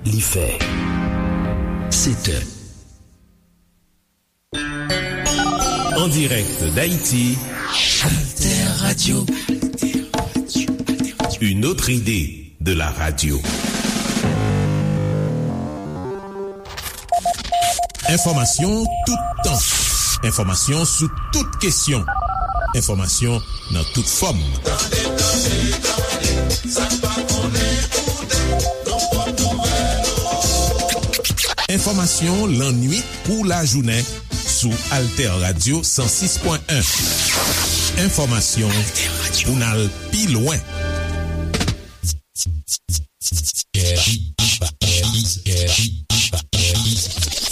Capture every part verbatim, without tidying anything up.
Li fè sèt è. En direct d'Haïti, Alter Radio. Une autre idée de la radio. Enfòmasyon toutan. Enfòmasyon sou tout kesyon. Enfòmasyon nan tout fòm. Tande, tande, tande, sa n pa konnen koute, nan pòt nouvèl yo. Enfòmasyon lannuit kou lajounen sou Alter Radio san sis pwen en. Enfòmasyon pou n al pi lwen.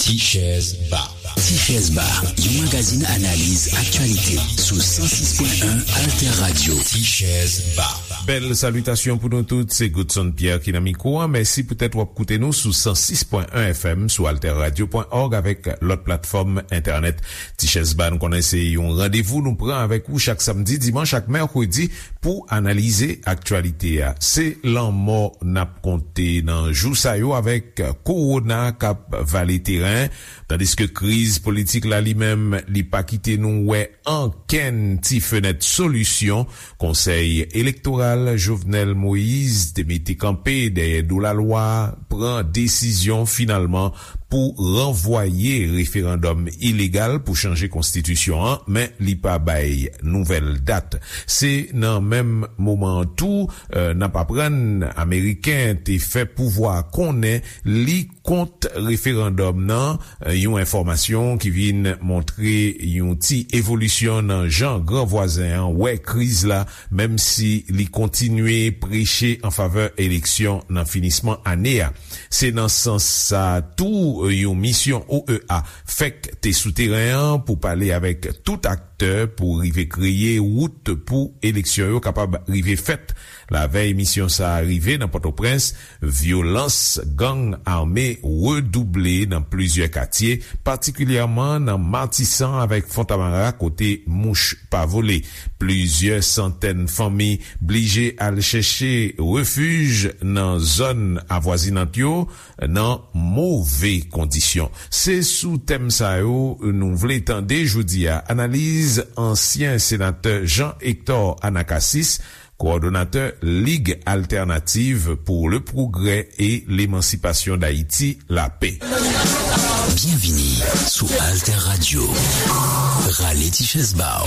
Tichèz Ba. Tichèz Ba, yon magazin analiz aktyalite sou san sis pwen en Alter Radio. Tichèz Ba. Bèl salitasyon pou nou tout, se Godson Pierre ki nan mikwo a. Mèsi poutèt w ap koute nou sou san sis pwen en F M, sou alter radio pwen org avèk lòt platfòm entènèt. Tichèz Ba, nou konnen se yon randevou nou pran avèk ou chak samdi, dimanch ak mèkredi pou analize aktyalite a. Se lanmò n ap konte nan jou sa yo avèk kowona k ap vale teren, tandiske kriz politik la li menm, li pa kite nou wè ankenn ti fenèt solisyon. Konsèy elektoral Jovenel Moïse te mete kanpe dèyè do lalwa pran desizyon finalman pou ranvwaye referandòm ilegal pou chanje konstitisyon an, men li pa bay nouvèl dat. Se nan menm moman an tou, eh, n ap aprann Ameriken te fè pouvwa konnen li kont referandòm nan, eh, yon enfòmasyon ki vin montre yon ti evolisyon nan jan gran vwazen an wè kriz la, menm si li kontinye preche an favè eleksyon nan finisman ane a. Se nan sans sa a tou, yon misyon O E A fèk te sou teren an pou pale avèk tout aktè pou rive kreye wout pou eleksyon yo kapab rive fèt. Lavèy misyon sa a rive nan Pòtoprens, vyolans gang ame redouble nan plizyè katye, patikilyèman nan Matisan avèk Fontamara kote mouch pa vole. Plizyè santèn fanmi blije al chèche refij nan zòn avwazinant yo nan move kondisyon. Se sou tèm sa yo nou vle tande jodi a analiz ansyen senatè Jean Hector Anacacis, kowòdonatè Lig Altènativ pou le Pwogrè e Lemansipasyon d Ayiti, Lapè. Byenvini sou Alter Radio. Rale ti chèz ba w.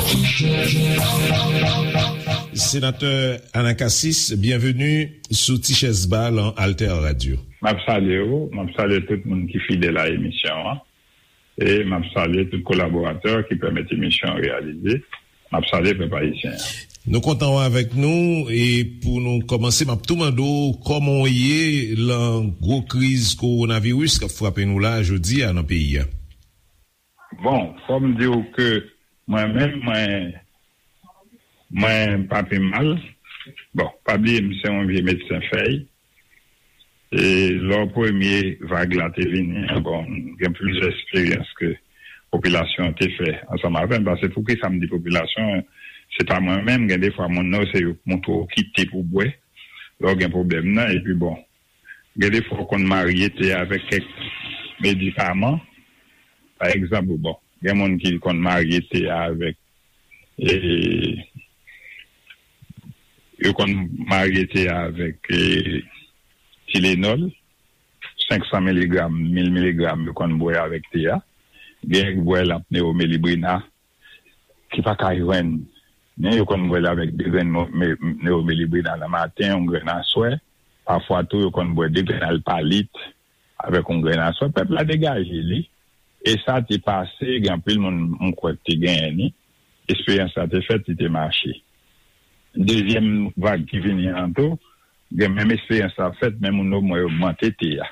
Senatè Anacacis, byenveni sou Ti Chèz Ba lan Alter Radio. M ap salye w, m ap salye tout moun ki fidèl a emisyon an. E m ap salye tout kolaboratè ki pèmèt emisyon an reyalize. M ap salye pèp ayisyen an. Nou kontan wè avèk nou, e pou nou kòmanse, m ap tou mande w kòman w ye lan gwo kriz kowonaviris k ap frape nou la jodi a nan peyi a. Bon, fò m di w ke mwen menm, mwen, mwen pa pi mal. Bon, pa bliye m se yon vye medsen fèy. E lò premye vag la te vini an, bon, gen plizyè eksperyans ke popilasyon an te fè ansanm avè m. Paske poukisa m di popilasyon an, se pa mwen menm, gen defwa moun nan yo se yo k montre w kite pou bwè lè w gen pwoblèm nan, epi bon, gen defwa w konn marye te avèk kèk medikaman. Pa egzanp, bon, gen moun ki konn marye te avèk, e, yo konn marye te avèk, e, Tylenol, senk san miligram, mil miligram, yo konn bwè avèk te a. Gen ki bwè l ak Neomelibrina, ki pa ka jwenn, men yo konn bwè l avèk de grenn mo-, me-, Neomelibrina nan maten, yon grenn aswè. Pafwa tou, yo konn bwè de grenn Alpalit avèk yon grenn aswè. Pèp la degaje li. E sa te pase, gen anpil moun, m kwè, ki te genyen li. Eksperyans la te fèt, li te mache. Dezyèm vag ki vini an tou, gen menm eksperyans la fèt, men moun yo mwen yo ogmante te a.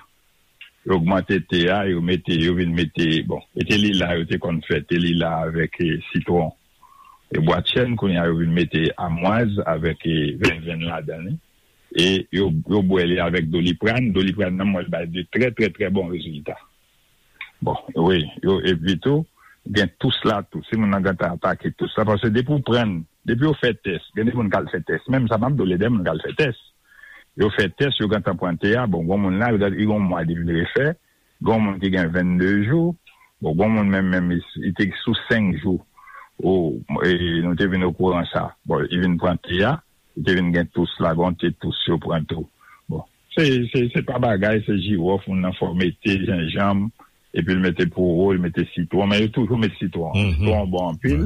Yo ogmante te a, yo mete, yo vin mete, bon, e te lila yo te konn fè, te lila avèk, e, sitwon e bwatchèn, kounye a yo vin mete amwaz avèk, e, venvenn ladan li. E yo, yo bwè li avèk Doliprane. Doliprane nan, mwen, bay de trè, trè, trè bon rezilta. Bon, wi, yo, epi tou, gen tous la tou. Si moun nan gentan atake tous la, paske depi w pran, depi yo fè tès, gen de moun k al fè tès. Menm sa, m ap di w, gen de moun k al fè tès. Yo fè tès, yo gentan pran T A. Bon, gon moun la, li gen yon mwa li vin refè. Gon moun ki gen vennde jou. Bon, gon moun menm, menm, li, li te sou senk jou. Ou, e, nou te vin okouran sa. Bon, li vin pran T A, li te vin gen tous la, gon te tous yo pran tou. Bon, se, se, se pa bagay, se jiwòf, moun nan fè w mete jenjanm, epi l mete powo, l mete sitwon, men yo toujou met sitwon. Sitwon bon anpil.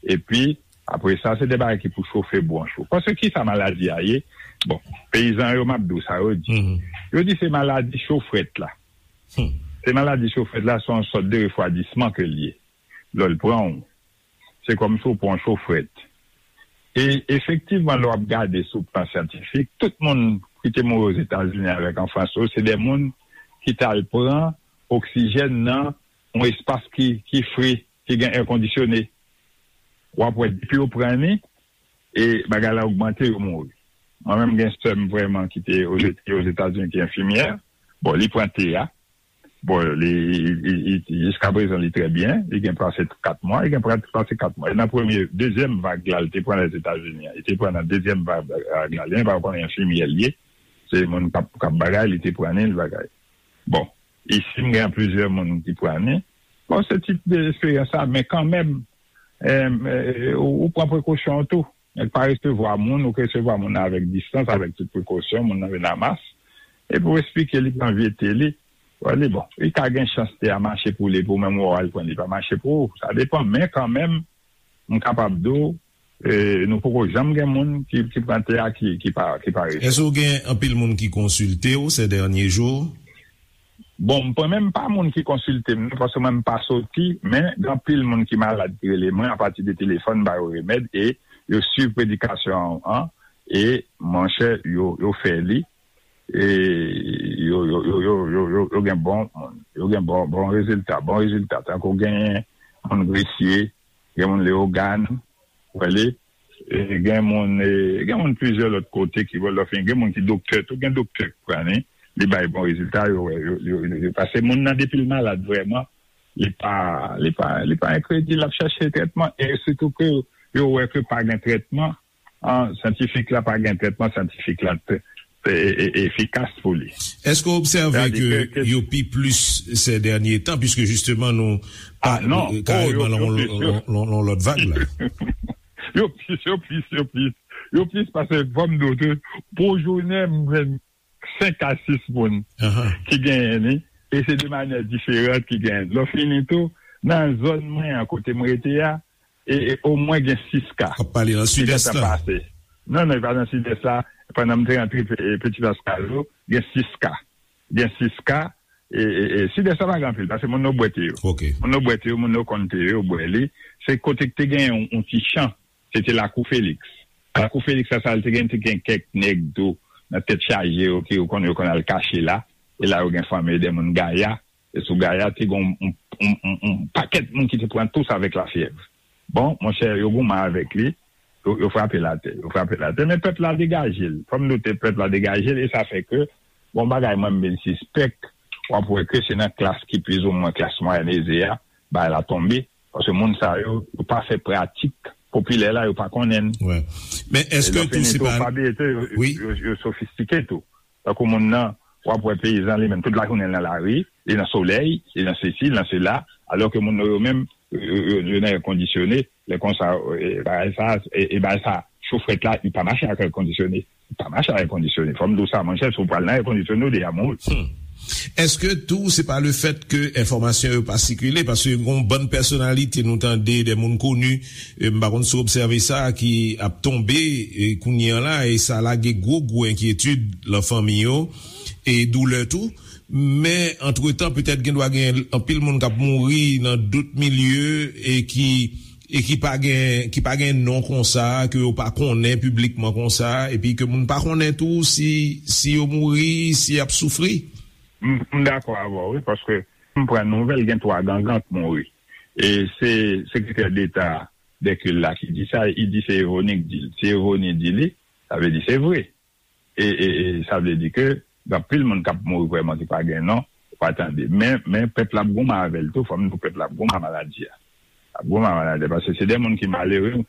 Epi, apre sa, se de bagay ki pou chofe bwonch ou. Paske ki sa maladi a ye? Bon, peyizan yo, m ap di w sa yo di. Yo di se maladi cho frèt la. Se maladi cho frèt la, se yon sòt de refwadisman ke l ye. Lè l pran w, se kòmsi w pran yon cho frèt. E efektivman, lè w ap gade sou plan syantifik, tout moun ki te mouri Ozetazini avèk an Frans yo, se de moun ki t al pran oksijèn nan yon espas ki, ki fre, ki gen è kondisyone. W ap wè, depi yo pran li, e bagay la ogmante, yo mouri. Mwen menm, gen sè m vrèman ki te Oze-, Ozetazini, ki enfimyè. Bon, li pran T A. Bon, li, li, li, li, jiska prezan, li trè byen. Li gen pase kat mwa. Li gen pra-, pase kat mwa. E nan premye, dezyèm vag la, li te pran Lèzetazini an. Li te pran nan dezyèm vag la. Li pa konnen enfimyè li ye. Se moun k ap, k ap bagay, li te pran li, li bagay. Bon, isi, m gen plizyè moun ki pran li. Bon, se tip de esperyans sa, men kanmenm, em, eh, ou, ou pran prekosyon w tou. Nèg pa resevwa moun, ou resevwa moun nan avèk distans, avèk tout prekosyon, moun nan vin a mas. Epi w eksplike li, pran vye te li. Wè li, bon, li ka gen chans te a mache pou li, pou menm ou al pran li pa mache pou ou. Sa depann, men kanmenm, m kapab di w, e, nou poko janm gen moun ki, ki pran te a ki, ki pa, ki pa resevwa. Èske w gen anpil moun ki konsilte w ces derniers jours? Bon, m pa menm pa moun ki konsilte m, non, paske mwen m pa soti, men gen anpil moun ki malad ki rele mwen apati de telefòn, m ba yo remèd, e yo swiv predikasyon an, e monchè, yo, yo fè li, e yo, yo, yo, yo, yo, yo, yo gen bon, yo gen bon, bon rezilta, bon rezilta. Tankou genyen moun Gresye, gen moun Leyogàn, wè li, e gen moun, e gen moun plizyè lòt kote ki wè lè fini, gen moun ki doktè tou, gen doktè ki pran li, li bay bon rezilta, yo, yo, yo, yo, yo, paske moun nan depi l malad vrèman, li pa, li pa, li pa enkredil, l ap chèche trètman, e sitou ke yo wè ke pa gen trètman, an, syantifik la pa gen trètman syantifik la te, te, e, e, efikas pou li. Èske w obsève ke yo pi plis ces derniers temps, puiske jisteman nou pa, ah, non, kareman lan yon lòt vag la? Yo plis, yo plis, yo plis. Yo plis paske, fò m di w tou, pou jounen, m jwenn senk a sis moun ki genyen li, e se de manyè diferan ki genyen. Lè w fini tou, nan zòn mwen an, kote m rete a, e, e omwen gen sis ka. W ap pale nan Sidès la? Non, non, e pa nan Sidès la. Pandan m te rantre Pe-, e, Petit Pascal, gen sis ka. Gen sis ka. E, e, e Sidès la pa gen anpil, paske moun yo bwè te yo. Moun yo bwè te yo, moun yo konn te yo, yo bwè li. Se kote k te gen yon, yon ti chan. Se te Lakou Feliks. Lakou Feliks la, sa, li te gen, te gen kèk nèg tou nan tèt chaje yo, ki yo konn, yo konn al kache la. E la, yo gen fanmi de moun Gaya. E sou Gaya, te gen yon, yon, yon, yon, yon pakèt moun ki te pran tous avèk lafyèv. Bon, monchè, yo goumen avèk li, yo, yo frape l atè, yo frape l atè. Men pèp la degaje l. Fò m note, pèp la degaje l, e sa fè ke, bon, bagay mwen, m vin sispèk, w ap wè ke se nan klas ki plizoumwen klas mwayèn eze a, bagay la tonbe, paske moun sa yo, yo pa fè pratik popilè la, yo pa konnen l. Wè. Men èske tou se pa, pa bliye tou, yo, yo, yo sofistike tou. Tankou moun nan, w ap wè peyizan li menm, tout lajounen l nan lari, li nan solèy, li nan sesi, li nan sela, alò ke moun nan yo menm, yo, yo, yo, yo nan è kondisyone, lè konsa, e, bagay sa, e, e bagay sa, cho frèt la, li pa mache ak è kondisyone. Li pa mache ak è kondisyone. Fò m di w sa, monchè, si w pral nan è kondisyone, ou deja mouri. Hmm. Èske tou, se pa le fèt ke enfòmasyon yo pa sikile? Paske gon bann pèsonalite nou tande, de moun koni, e, m pa konn si w obsève sa, ki ap tonbe, e, kounye an la, e sa lage gwo, gwo enkyetid lan fanmi yo, e doulè tou. Men, antretan, petèt gen dwa gen anpil moun k ap mouri nan dout milye e ki, e ki pa gen, ki pa gen non konsa, ke yo pa konnen piblikman konsa, epi ke moun pa konnen tou si, si yo mouri, si y ap soufri. M, m dakò avè w, wi, paske m pran nouvèl, gen twa gangan k mouri. E se sekretè deta Dèkil la ki di sa, li di se Evoni k di l. Si Evoni di li, sa vle di se vre. E, e, e sa vle di ke gen anpil moun k ap mouri vrèman ki pa gen non, ou pa tande. Men, men pèp la ap goumen avè l tou, fò m di w, pèp la ap goumen ak maladi a. Ap goumen ak maladi a, paske se de moun ki malere.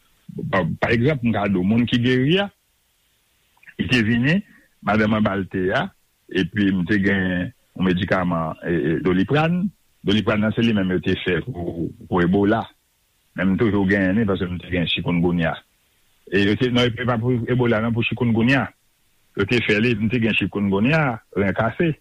Pa, pa egzanp, m ka di w, moun ki geri a, li te vini, madanm mwen ba l te a, epi m te gen yon medikaman, e, e, Doliprane. Doliprane nan se li menm yo te fè pou, pou Ebola. Men m toujou genyen li paske m te gen chikungunya. E yo te, non, e pa pou Ebola, non, pou chikungunya. Yo te fè li, m te gen chikungunya, ren kase.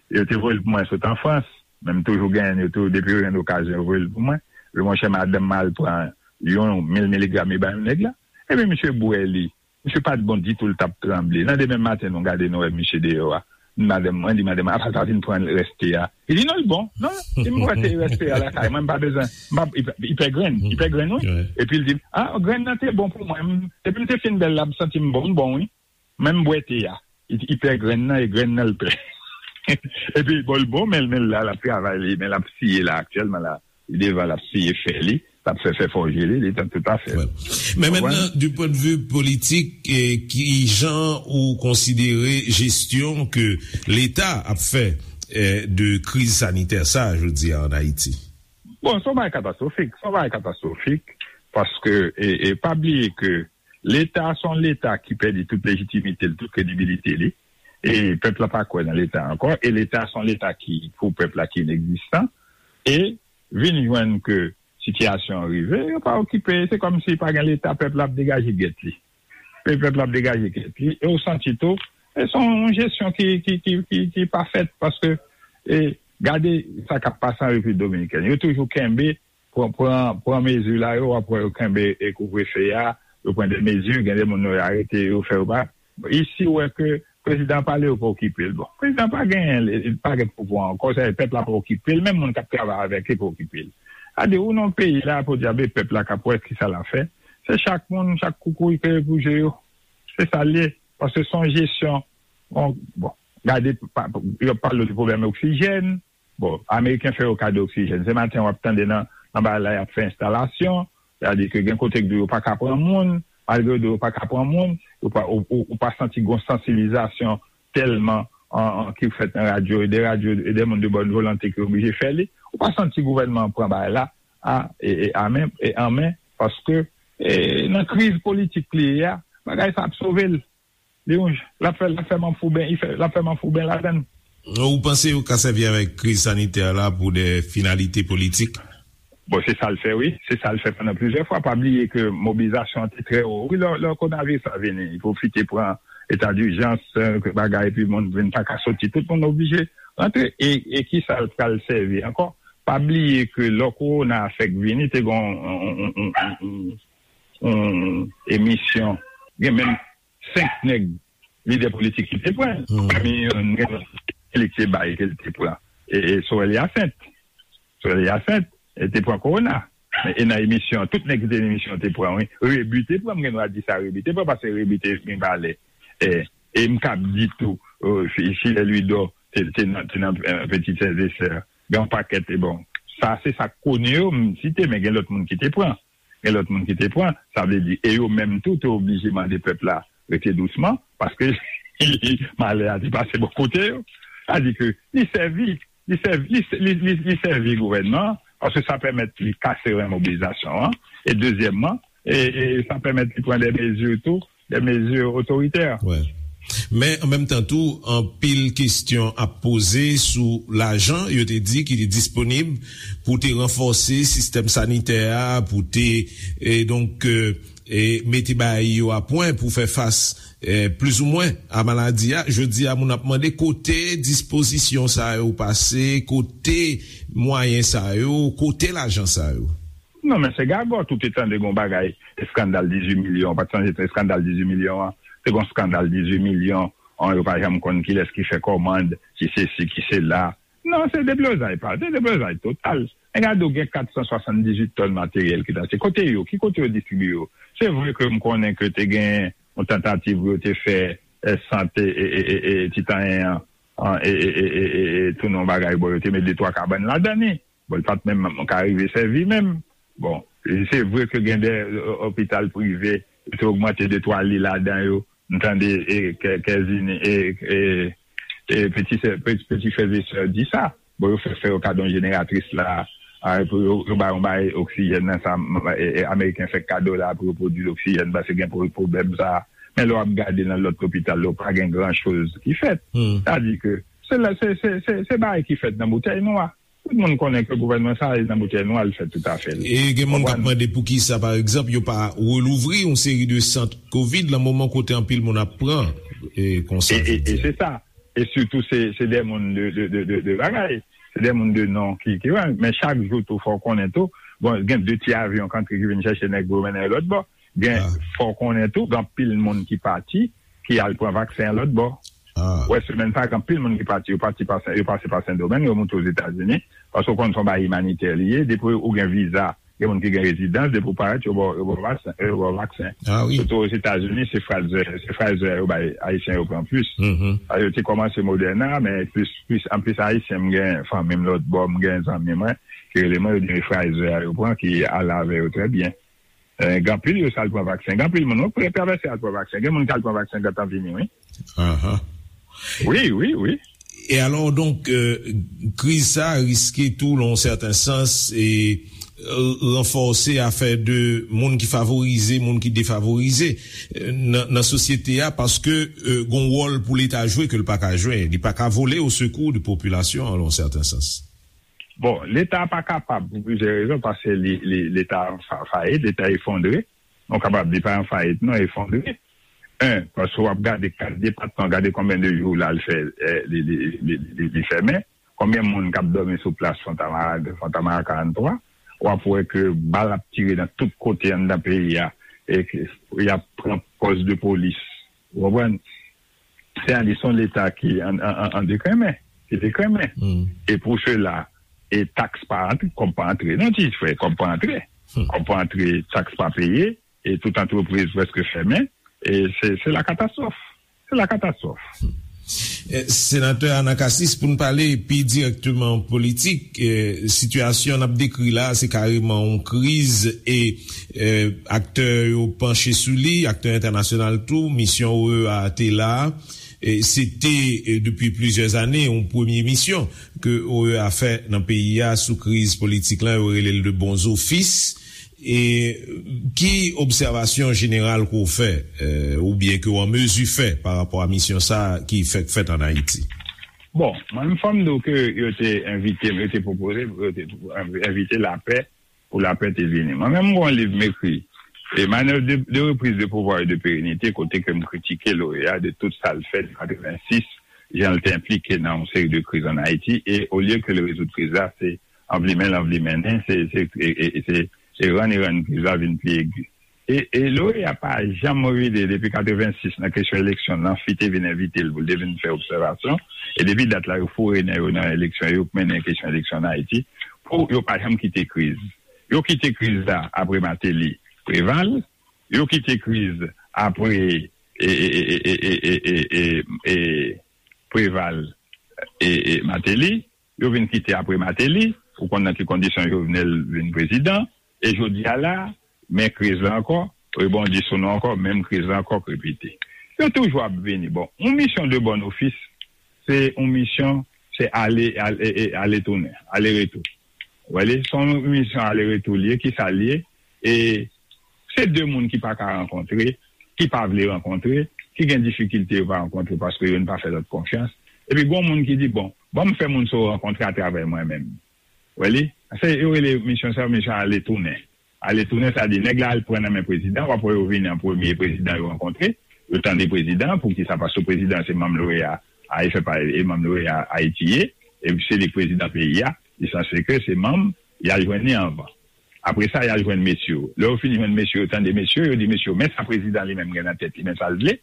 Yo te voye l pou mwen sot an Frans, men m toujou genyen li, yo tou, depi yo jwenn okazyon, yo voye l pou mwen. Yo, monchè, madanm mwen al pran yon mil miligram, li bay yon nèg la. Epi misye bwè li. Misye pa t bon ditou, l t ap tranble. Nan demen maten, nou gade, nou wè misye deyò a. Madanm mwen di, madanm mwen, "Apa l pa vin pran rès te a?" Li di, "Non, l bon. Non, li m wè te rès te a lakay mwen, m pa bezwen. M pa, li pè grenn, li pè grenn, wi." Epi l di, "Ah, grenn nan te bon pou mwen. M- Depi m te fin bwè l la, m santi m bon, m bon, wi. Men m bwè te a." Li di, "Li pè grenn nan, e grenn nan l pè." Epi, bon, l bon, men, men l la, l ap travay li, men l ap siye la, aktyèlman la. Li devan, l ap siye fè li, l ap fè, fè fòje li, li tan tout afè. Wè. Men mentnan, du point de vue politik, eh, ki jan ou konsidere jesyon ke Leta ap fè, eh, de kriz sanitè sa, jodi a, an Ayiti? Bon, se yon bagay katastwofik, se yon bagay katastwofik, paske, e, e pa bliye ke Leta se yon Leta ki pèdi tout lejitimite l, tout kredibilite li, e pèp la pa kwè nan Leta ankò, e Leta se yon Leta ki, pou pèp la, ki inegzistan, e vin jwenn ke sitiyasyon an rive, yo pa okipe, se kòmsi pa gen Leta, pèp la ap degaje gèt li. Pe- pèp la ap degaje gèt li, e ou santi tou, e se yon jesyon ki, ki, ki, ki, ki pa fèt, paske, e, gade sa k ap pase an Repiblik Dominikèn. Yo toujou kenbe, pran, pran, pran mezi la, yo, w ap wè yo kenbe, e, kouvrefe a, yo pran de mezi, gen de moun yo arete, yo fè yo pa. Isi, ou wè ke prezidan pale, yo pa okipe l. Bon, prezidan pa genyen, li pa gen pouvwa ankò, sa vle di pèp la pa okipe l, menm moun k ap travay avèk li pa okipe l. Sa vle di, ou nan peyi la, podyab, e pèp la k ap wè kisa l ap fè. Se chak moun, chak koukouy peye pou je yo. Se sa l ye. Paske se yon jesyon, bon, bon, gade, pa- yo ap pale de pwoblèm oksijèn. Bon, Ameriken fè yo kado oksijèn. Se maten w ap tande nan, nan bagay la, y ap fè enstalasyon. Sa vle di ke gen kote ke yo pa ka pran moun, malgre yo di yo pa ka pran moun, yo pa, ou, ou, ou pa santi gon sansibilizasyon tèlman an, an, ki fèt nan radyo, e de radyo, e de moun de bòn volonte ki oblije fè li. Ou pa santi gouvènman an pran bagay la a, e, e, a men, e an men, paske, e, nan kriz politik li ye a, bagay sa ap sove l. Li yon, l ap fè, l ap fè manfouben, li fè, l ap fè manfouben ladan l. Ou panse yo ka sèvi avèk kriz sanitè la pou de finalite politik? Bon, se sa l fè, wi. Se sa l fè pandan plizyè fwa. Pa bliye ke mobilizasyon an te trè wo. Wi, lè, lè kowonaviris la vini, li pwofite pran eta dijans, eh, bagay, epi moun vin pa ka soti. Tout moun oblije rantre. E, e kisa l pral sèvi ankò? Pa bliye ke lè kowona a fèk vini, te gen yon, yon, yon, yon, yon, yon emisyon. Gen menm senk nèg lidè politik ki te pran. Pami yo, gen li ki te bay, ke l te pran. E, e Sorel Hyacinthe. Sorel Hyacinthe, e te pran kowona. E nan emisyon, tout nèg ki te nan emisyon te pran, wi. Rebu te pran, m gen dwa di sa, Rebu te pran, paske Rebu te gen valè. E, e m kab di tou, e, Fi- Filè Lwidò te, te nan, te nan, e, Petit Frères et Sœurs. Gen yon pakèt, e bon. Sa, se sa k kone yo, m site, men gen lòt moun ki te pran. Gen lòt moun ki te pran, sa vle di, e yo menm tou te oblije mande pèp la rete dousman, paske malè a te pase bò kote yo. Sa di ke li sèvi, li sèvi, li, li, li, li sèvi gouvènman an, paske sa pèmèt li kase ren mobilizasyon an, e dezyèmman, e, e sa pèmèt li pran de mezi tou, de mezi otoritè. Wè. Men, an menm tan tou, anpil kesyon ap poze sou lajan, yo te di, ki te disponib pou te ranfòse sistèm sanitè a, pou te, e, donk, e, e, mete bagay yo a pwen pou fè fas, e, plizoumwen a maladi a. Jodi a, moun ap mande kote dispozisyon sa yo pase, kote mwayen sa yo, kote lajan sa yo. Non, men se gagòt, ou te tande gon bagay, eskandal dizuit milyon, ou pa t sonje se eskandal dizuit milyon an, se gon eskandal dizuit milyon, an, yo pa janm konn kilès ki fè kòmand, ki se si, ki se la. Non, se deblozay, pa, se deblozay total. Men gade, ou gen kat san swasanndizuit tòn materyèl ki t achte. Kote yo? Ki kote yo distribiye yo? Se vre ke m konnen ke te gen yon tantativ pou yo te fè, e, sant, e, e, e, e, e, Titanyen an, an, e, e, e, e, e, e, tounen yon bagay, bon, yo te met de twa kabann ladan li. Bon, li pa t menm ka rive sèvi menm. Bon, se vre ke gen de, e, opital prive, yo te ogmante de twa li ladan yo. M tande, e, kè- kèzini, e, e, e, peti sè- peti, peti frè e sè di sa. Bon, yo fè, fè yo kado yon jeneratris la, a, pou yo, yo ba yon bay oksijèn nan sa, m- e, e, Ameriken fè kado la pou yo pwodui oksijèn, paske gen pwo- pwoblèm sa, Men lè w ap gade nan lòt lopital yo, pa gen gran choz ki fèt. Sa di ke se la, se, se, se, se bagay ki fèt nan boutèy nwa. Tout moun konnen ke gouvènman sa a nan boutèy nwa, l fè tout afè l. E gen moun k ap mande poukisa, pa egzanp, yo pa relouvri yon seri de sant kovid nan moman kote anpil moun ap pran, e, konsa, e, e, e se sa. E sitou, se, se de moun de, de, de, de, de bagay. Se de moun de non ki, ki, men chak jou tou, fò w konnen tou. Bon, gen de ti avyon k antre ki vin chèche nèg yo mennen yo lòt bò. Gen, fò w konnen tou, gen anpil moun ki pati, ki al pran vaksen an lòt bò. Ou wè, semèn sa a, gen anpil moun ki pati, yo pati pa Sen, yo pase pa Sendomeng, yo moute Ozetazini, paske w konn se yon bagay imanitè li ye, depi ou gen viza, gen moun ki gen rezidans, depi w parèt, yo ba w, yo ba w vaksen, yo ba w vaksen. Sitou Ozetazini, se Pfizer, se Pfizer yo bay Ayisyen yo pran plis. Yo te kòmanse Moderna, men plis, plis, anplis Ayisyen, m gen fanmi m lòt bò, m gen zanmi mwen, ki rele mwen, yo di m se Pfizer a yo pran, ki ale avè yo trè byen. Eh, gen anpil yo sa al pran vaksen. Gen anpil moun, wi, pou travèse al pran vaksen. Gen moun ki al pran vaksen gentan vini, wi. Wi, wi, wi. E alò, donk, euh, kriz sa a riske tou, nan yon sèten sans, e, euh, ranfòse afè de moun ki favorize, moun ki defavorize, euh, nan, nan sosyete a, paske, euh, gon wòl pou Leta jwe ke l pa ka jwe. Li pa ka vole au secours de popilasyon an, nan yon sèten sans. Bon, Leta pa kapab pou plizyè rezon, paske li, li, Leta an fa-, fayit, Leta efondre. Nou kapab di pa an fayit, non, efondre. En, paske w ap gade kat depatman, gade konbyen de jou la l fè, eh, li, li, li, li, li fèmen. Konbyen moun k ap dòmi sou plas Fontamara, Fontamara karant twa? W ap wè ke bal ap tire nan tout kote anndan peyi a, e ke y ap pran pòs de polis. Ou konprann? Se a di se yon Leta ki an, an, an, an dekrenmen, ki dekrenmen. E pou sela, e taks pa antre, kòb pa antre. Non, ti frè, kòb pa antre. Kòb pa antre, taks pa peye, e tout antrepriz prèske fèmen. E se, se la katastwòf. Se la katastwòf. Eh, Senatè Anacassis, pou n pale pi dirèkteman politik, eh, sitiyasyon n ap dekri la, se kareman yon kriz e, eh, aktè yo panche sou li, aktè entènasyonal tou, misyon O E A te la. E se te, eh, depi plizyè ane, yon premye misyon ke O E A fè nan peyi a sou kriz politik la, yo rele l de bons offices. E ki obsèvasyon jeneral ke w fè, eh, oubyen ke w an mezi fè pa rapò a misyon sa a ki fèk fèt ann Ayiti? Bon, mwen menm fò m di w ke yo te envite m, yo te pwopoze m, yo te envite lapè pou lapè te vini. Mwen menm, m gen yon liv m ekri, e Manœuvre de, de reprise de pouvoir et de pérennité, kote ke m kritike l'O E A de tout sa l fè de katrevensis, jan l te enplike nan yon seri de kriz ann Ayiti, e olye ke l rezoud kriz la, se anvlimen l anvlimennen, se, se, e, e, e se, se rann e rann kriz la vin pi egi. E, e l'O E A pa janm revide depi katrevensis nan kesyon eleksyon, Lanfi te vin envite l pou l te vin fè obsèvasyon, e depi dat la, yo foure nen yo nan eleksyon, yo mennen kesyon eleksyon ann Ayiti, pou yo pa janm kite kriz. Yo kite kriz la apre Martelly, Préval, yo kite kriz apre, e, e, Préval, e, e, Martelly, yo vin kite apre Martelly, ou konn nan ki kondisyon Jovenel vin prezidan, e jodi a la, men kriz la ankò, rebondi sou nou ankò, menm kriz la ankò k repete. Yo toujou ap vini. Bon, yon misyon de bon ofis, se yon misyon, se ale, ale, e, e, ale tounen, ale retou. Ou wè li, se yon misyon ale retou li ye, ki sa l ye, e se de moun ki pa ka rankontre, ki pa vle rankontre, ki gen difikilte yo pa rankontre paske youn pa fè lòt konfyans. Epi gon moun ki di, bon, ban m fè moun sa yo rankontre atravè mwen menm. Ou wè li? Se, yo rele misyon sa, misyon ale tounen. Ale tounen, sa di, nèg la al pran nan men prezidan, w ap wè yo vini an premye, prezidan yo rankontre, yo tande prezidan, poukisa? Paske prezidan se manm l'O E A, a, e fè pa, e manm l'O E A Ayiti ye, e se li k prezidan peyi a, li sanse ke se manm, y al jwenn li anvan. Apre sa, y al jwenn mesye yo. Lè yo fin jwenn mesye yo, tande mesye yo, yo di mesye yo, men sa prezidan li menm gen nan tèt li, men sa l vle.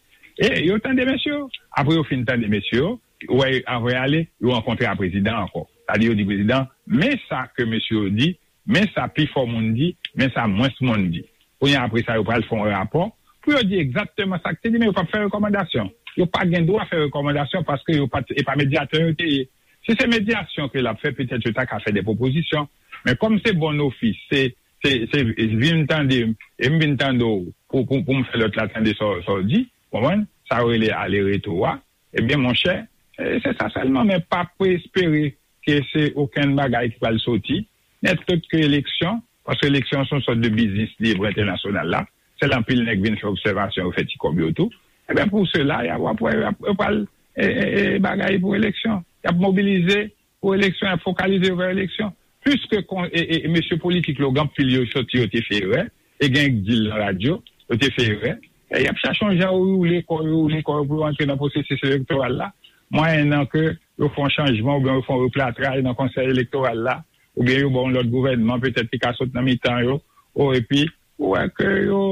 E yo tande mesye yo. Apre yo fin tande mesye yo, ou wè, anvan y ale, yo rankontre a prezidan ankò. Sa di, yo di prezidan, men sa ke mesye yo di, men sa pifò moun di, men sa mwens moun di. Kounye a, apre sa, yo pral fè yon rapò pou yo di egzakteman sa k te di, men yo p ap fè rekòmandasyon. Yo pa gen dwa fè rekòmandasyon paske yo pa t, e pa medyatè yo te ye. Si se medyasyon ke l ap fè, petèt yo ta ka fè de pwopozisyon. Men kòm se bon ofis, se, se, se vin tande m, e m vin tande w pou, pou, pou m fè lòt la tande sa w, sa w di, konprann? Sa yo rele ale reto a. Ebyen, monchè, e, se sa sèlman, men pa pou espere ke se okenn bagay ki pral soti, nèt lòt ke eleksyon, paske eleksyon se yon sòt de biznis li ye pou entènasyonal la. Sèl anpil nèg vin fè obsèvasyon, yo fè ti kòb yo tou. Ebyen, pou sela, y ap, w ap wè, y ap, y ap pral e, e, e, bagay pou eleksyon. Y ap mobilize pou eleksyon, y ap fokalize yo vè eleksyon. Piske kon, e, e, e mesye politik yo, gen anpil yo soti, yo te fè erè, e gen k di l nan radyo, yo te fè erè, e y ap chache yon jan yo woule kò yo, woule kò yo pou yo antre nan pwosesis elektoral la. Mwayennan ke yo fè yon chanjman oubyen yo fè yon replatra nan konsèy elektoral la, oubyen yo ba yon lòt gouvènman, petèt ki ka sot nan mitan yo, o, epi ou wè ke yo,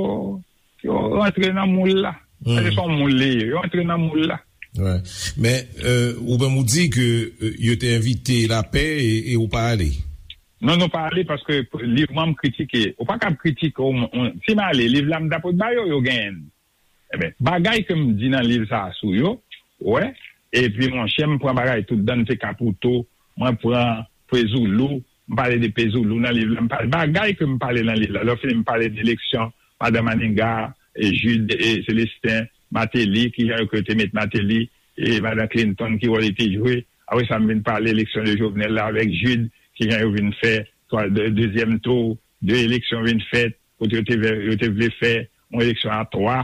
yo rantre nan moul la. Sa se yon moul li ye, yo rantre nan moul la. Men ou menm ou di ke yo te envite lapè e ou pa ale. Non, nou pa ale paske liv mwen m kritike. Ou pa kab kritike yon moun. Si m ale, liv la m ta pot ba yo, yo genyen l. Ebyen, bagay ke m di nan liv sa a sou yo, ou wè, epi monchè, m pran bagay tout dan, m te Kapouto, mwen pran Pezoulou, m pale de Pezoulou nan liv la, m pale bagay ke m pale nan liv la. Lè fini, m pale de eleksyon, madan Maniga, e Jude, e Célestin, Martelly, kijan yo ke yo te met Martelly, e madan Clinton, ki wòl li te jwe. Apre sa, m vin pale eleksyon de Jovenel la avèk Jude, kijan yo vin fè dezyèm tou, de eleksyon vin fèt, kote yo te vle fè yon eleksyon a twa.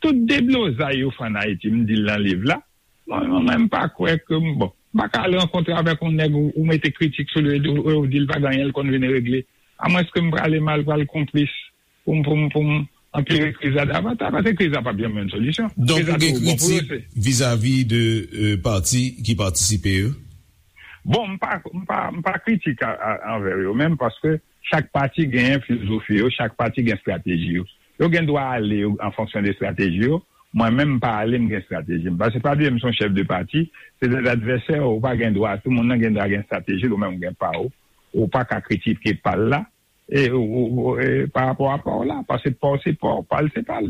Tout deblozay yo fè ann Ayiti, m di l nan liv la. Mwen menm m pa kwè ke m bon, m pa ka al rankontre avèk yon nèg ou mete kritik sou li e ou di l pa gen anyen l konn vin regle. Amwenske m prale mal pral konplis pou m pou m pou m anpire kriz la davantaj, paske kriz la p ap janm yon solisyon. Donk ou gen kritik vizavi de pati ki patisipe yo? Bon, m pa m pa m pa kritik anvè yo menm paske chak pati genyen filozofi yo, chak pati gen estrateji yo. Yo gen dwa ale an fonksyon de estrateji yo. Mwen menm m pa ale, m gen estrateji m. Paske pa bliye m se yon chèf de pati, se de advèsè, ou pa gen dwa, tout moun nan gen dwa gen estrateji l, ou menm ou gen pa w. Ou pa ka kritike pa l la e pa rapò a pa w la, paske pa w se pa w, pa l se pa l.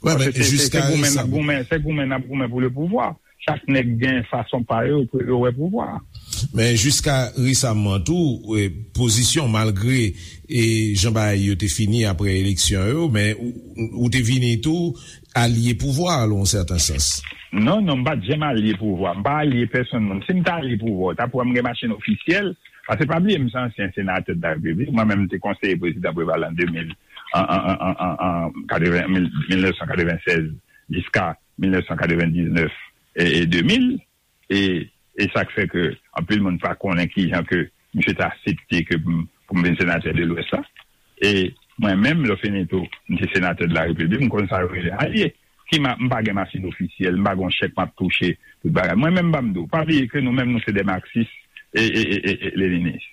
Se goumen n ap goumen, se goumen n ap goumen pou le pouvwa. Chak nèg gen fason pa yo pou yo wè pouvwa a. Men jiska resaman tou, pozisyon malgre e jan bagay yo te fini apre eleksyon yo, men ou te vini tou alye pouvwa a lan yon sèten sans. Non, non, m pa t janm alye pouvwa. M pa alye pèsonn moun. Si m ta alye pouvwa, w ta pou wè m gen machin ofisyèl. Paske pa bliye m se ansyen senatè de la repiblik. Mwen menm m te konseye prezidan Preval an de mil, an, an, an, an, an, an, katreven, mil, mil nèf san katreven sèz jiska mil nèf san katreven diznèf e, e de mil. E, e sa k fè ke anpil moun pa konnen kijan ke misye te aksepte ke m, pou m vin senatè de Lwès la. E mwen menm, lè fini tou, m te senatè de la repiblik, m konn sa yo rele alye. Ki ma, m pa gen machin ofisyèl, m pa gen yon chèk m ap touche, tout bagay. Mwen menm, m pa m di w, pa bliye ke nou menm, nou se de maksis e, e, e, e, e leninis.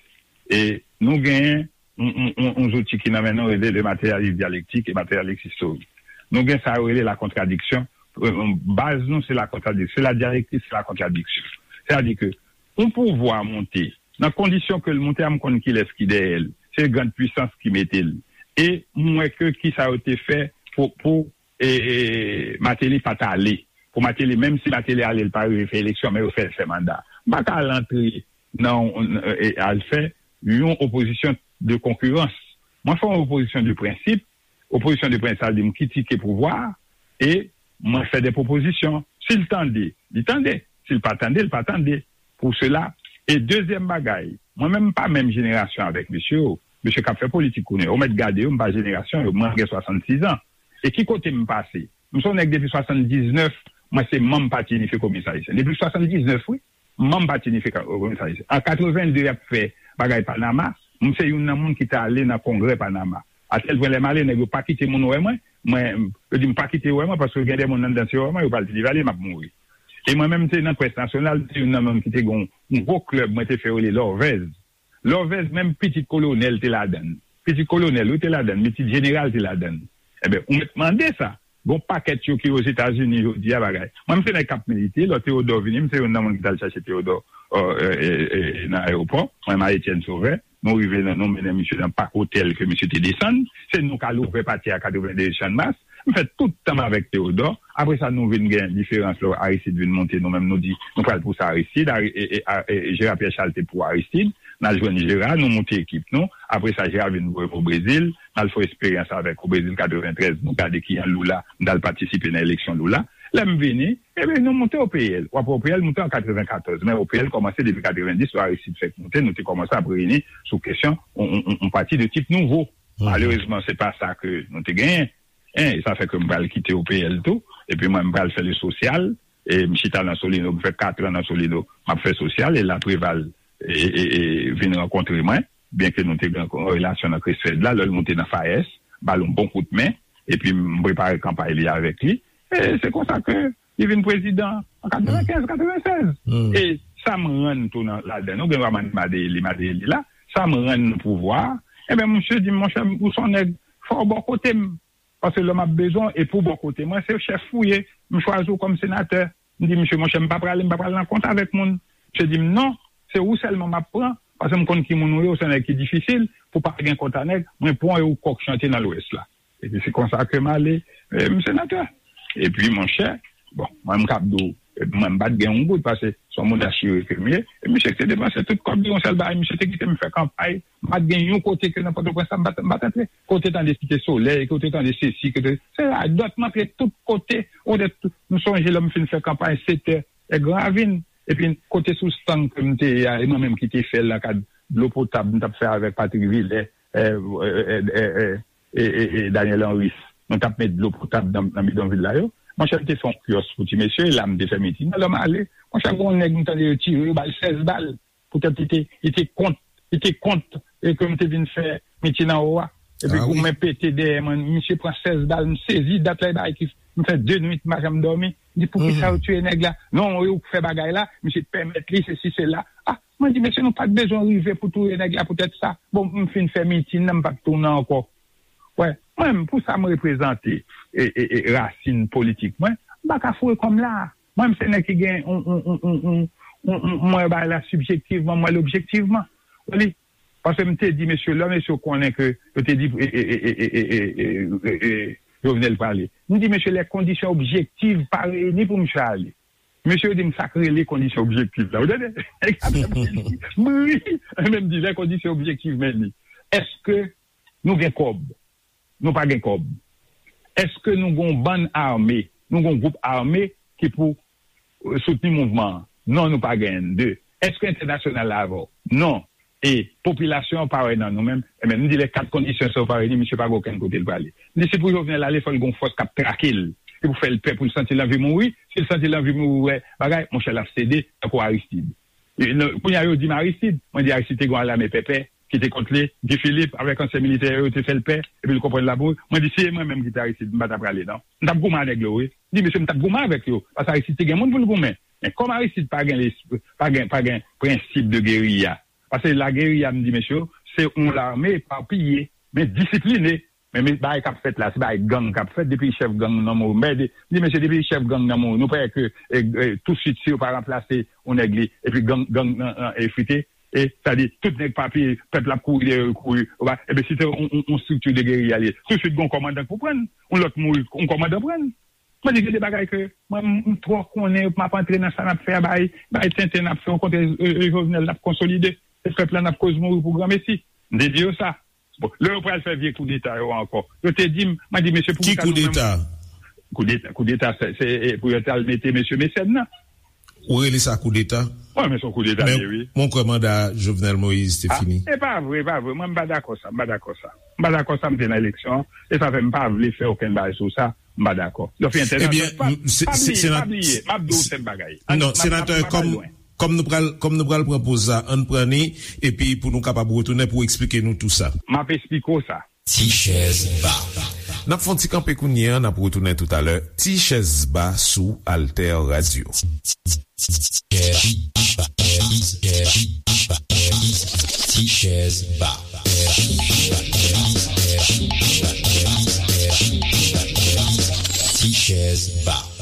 E nou genyen yon, yon, yon, yon zouti ki nan men nou rele le matérialisme dialectique et matérialisme historique. Nou gen sa yo rele la contradiction. Baz nou se la contradiction, se la dialektik, se la contradiction. Sètadi ke yon pouvwa monte, nan kondisyon ke l monte a, m konn kilès ki dèyè l, se grand puissance ki mete l. E m wè ke kisa yo te fè pou, pou e, e, Martelly pa t ale. Pou Martelly, menm si Martelly ale, l pa rive fè eleksyon, men yo fè l fè manda. M pa ka al antre nan, e, al fè yon opozisyon de konkirans. Mwen fè yon opozisyon de prensip. Opozisyon de prensip, sa vle di m kritike pouvwa a e mwen fè de pwopozisyon. Si l tande, li tande. Si l pa tande, li pa tande. Pou sela. E dezyèm bagay, mwen menm m pa menm jenerasyon avèk mesye yo. Mesye k ap fè politik kounye a, ou mèt gade yo, m pa jenerasyon yo, mwen m gen swasannsis an. E ki kote m pase? M se yon nèg depi swasanndiznèf, mwen se manm Pati Inifye Kominis Ayisyen. Depi swasanndiznèf, wi. Manm Pati Inifye Kominis Ayisyen. An katreven de, y ap fè bagay Panama, m se youn nan moun ki t ale nan kongrè Panama. Atèl pwen lè m ale, nèg yo pa kite moun wè mwen. Mwen, yo di m pa kite wè mwen, paske gen de moun anndan, si yo wè mwen, yo pral di li, "Valye, m ap mouri." E mwen menm, m te nan près nasyonal, m te youn nan moun ki te gen yon gwo klèb, mwen te fè yo rele Lòvèz. Lòvèz, menm pitit kolonèl te ladan l. Pitit kolonèl, wi, te ladan l, pitit jeneral te ladan l. Ebyen, ou mèt mande sa. Gon pakèt yo ki Ozetazini jodi a bagay. Mwen, m se nèg k ap milite, lè Teyodò vini, m se youn nan moun ki t al chache Teyodò nan ayewopò. Mwen, Marie Etienne Sauveur, nou rive, nou mennen misye nan Parc Hôtel ke misye te desann. Se nou k al ouvè pati a katreven de Chanmas. M fè tout tan m avèk Teyodò. Apre sa, nou vin gen diferans lè Aristide vin monte, nou menm nou di, nou pral pou sa Aristide. Gérard Pierre Charles te pou Aristide. N al jwenn Gérard, nou moute ekip nou. Apre sa, Gérard vin voye m o Brezil. N al fè eksperyans avèk o Brezil katreventrèz, nou gade kijan Lula, m t al patisipe nan eleksyon Lula. Lè m vini, ebyen, nou moute O P L. W ap wè O P L moute an katrevenkatòz, men O P L kòmanse depi katrevendis, lè Aristide fèk moute, nou te kòmanse ap reyini sou kesyon yon pati de tip nouvo. Malerezman, se pa sa ke nou te genyen. Hein, e sa fè ke m pral kite O P L tou. Epi mwen, m pral fè le sosyal. E m chita nan Solino, m fè kat an nan Solino, m ap fè sosyal. E la Preval e, e, e, vin rankontre mwen, byen ke nou te gen yon relasyon nan Kresfèd la, lè l moute nan FAES, ba l yon bon kout men, epi m prepare kanpay li avèk li. E se konsa ke li vin prezidan an katrevenkenz, katrevennsèz. E sa m rann tou nan, ladan, nou gen dwa mande Madeyeli, Madeyeli la, sa m rann nan pouvwa a, ebyen, misye di m, monchè, ou se yon nèg, fò w bò kote m. Paske lè m ap bezwen w, e pou bò kote mwen, se chèf ou ye, m chwazi w kòm senatè. M di, misye, monchè, m pa prale, m pa pral nan kont avèk moun. Misye di m, non, se ou sèlman m ap pran, paske m konn ki moun ou ye, ou se yon nèg ki difisil, pou pa gen kont a nèg, mwen pran w e ou kòk chante nan Lwès la. Epi se konsa ke m ale, e, m senatè. Epi, monchè, bon, mwen m kab di w, e, mwen m pa t gen yon goud, paske se yon moun achire ke m ye. E misye ki te depanse tout kòb li, yon sèl bagay, misye te kite m fè kanpay. M pa t gen yon kote ke nan Pòtoprens la, m pa t, m pa t antre. Kote tande Site Solèy, kote tande sesi, kote, se radòt, m antre tout kote. Ou de, m sonje lè m fin fè kanpay, Setè, e Gran Ravin. Epi kote sou stang ke m te ye a, e mwen menm ki te fè l nan kad dlo potab, m t ap fè avèk Patrick Villers, e, e, e, e, e, e, e, e Daniel Henrys. Nou t ap met dlo potab nan, nan bidonvil la yo. Monchè, m te fè yon kyòs pou ti mesye, e la m te fè mitin. Lè m ale, monchè, gen yon nèg m tande yo tire, yo ba l sèz bal. Poutèt li te, li te kont, li te kont, e ke m te vin fè mitin anwo a. Epi goumen pete dèyè mwen, misye pran sèz bal, m sezi, dat la, e bagay ki, m fè de nwit, m pa janm dòmi. M di, poukisa yo tiye nèg la? Non, e ou k fè bagay la, misye pèmèt li, sesi, sela. A, mwen di, mesye, nou pa t bezwen rive pou touye nèg la poutèt sa. Bon, m fin fè mitin nan, m pa t tounen ankò. Wè, mwen menm, pou sa m reprezante, e, e, e, rasin politik mwen, m pa ka foure kò m la. Mwen menm, se nèg ki gen yon, yon, yon, yon, yon, yon, yon, mwen bagay la sibjektivman, mwen l objektivman. Ou li, paske m te di mesye, lè mesye konnen ke yo te di, e, e, Jovenel prale. M di, mesye, les conditions objectives pa reyini pou misye ale. Mesye yo di m sa k rele kondisyon objektif la. Ou tande? M ri, men m di, les conditions objectives, men li. Èske nou gen kòb? Nou pa gen kòb. Èske nou gen yon bann ame? Nou gen yon gwoup ame ki pou, e, soutni mouvman an? Non, nou pa genyen. De, èske entènasyonal la avè w? Non. E popilasyon an pa wè nan nou menm. Ebyen, m di, lè kat kondisyon sa yo pa reyini, misye pa gen okenn kote l prale. M di, si pou Jovenel ale, fò l gen yon fòs k ap trake l. Se pou fè l pè, pou l santi l anvi mouri. Si l santi l anvi mouri, wè bagay, monchè, l ap sede, tankou Aristide. E, non, kounye a, yo di m Aristide. Mwen di, Aristide te gen yon lame pèpè ki te kont li, Guy Philippe, avèk ansyen militè yo, yo te fè l pè, epi l konprann l ap mouri. Mwen di, si e mwen menm ki te Aristide, m pa t ap prale, non. M t ap goumen a nèg la, wi. M di, mesye, m t ap goumen avèk yo, paske Aristide te gen moun pou l goumen. Men kòm Aristide pa gen lespri, pa gen, pa gen prensip de geriya, paske lageriya, m di, mesye, se yon lame epapiye, men disipline. Men, men bagay k ap fèt la, se bagay gang k ap fèt, depi chèf gang nan mouri. Men, de, m di, mesye, depi chèf gang nan mouri, nou pa wè ke, e, e, tousuit, si yo pa ranplase yon nèg li, epi gang, gang nan, nan efrite, e, sa di, tout nèg pa peye, pèp la ap kouri dèyè yo, kouri, yo pa, ebyen, si se yon, yon, yon estrikti de geriya li ye, tousuit, gen yon kòmandan k pou pran l, yon lòt mouri, yon kòmandan pran l. Mwen di, gen de bagay ke mwen, m, m twò konnen, m ap antre nan sa n ap fè a, bay, bay tenten n ap fè, okontrè, e, e, Jovenel n ap konsolide, e pèp la n ap koz mouri pou granmesi. M te di yo sa. Bon, lè yo pral fè vye koudeta yo ankò, yo te di m, mwen di, mesye, pou ki sa nou menm? Ki koudeta? Koudeta, koudeta, se, se, e, pou yo t al mete mesye Mecène nan. Ou rele sa koudeta? Wi, men se yon koudeta li ye, wi. Men mwen kwè manda Jovenel Moïse te fini. E pa vre, e pa vre. Mwen, m pa dakò sa, m pa dakò sa. M pa dakò sa, m te nan eleksyon an. E sa fè m pa vle fè okenn bagay sou sa, m pa dakò. Yo fè entènasyonal. Ebyen, pa, m, se, pa se, bliye, pa bliye. M ap di w sèl bagay. Non, senatè, kòm, kòm nou pral, kòm nou pral pran poz sa, ann pran ni, epi pou nou kapab retounen pou eksplike nou tou sa. M ap eksplike w sa. Ti chèz ba. N ap fè yon ti kanpe kounye a, n ap retounen toutalè. Ti chèz ba sou Alter Radio. Ti chèz ba. Ti chèz ba.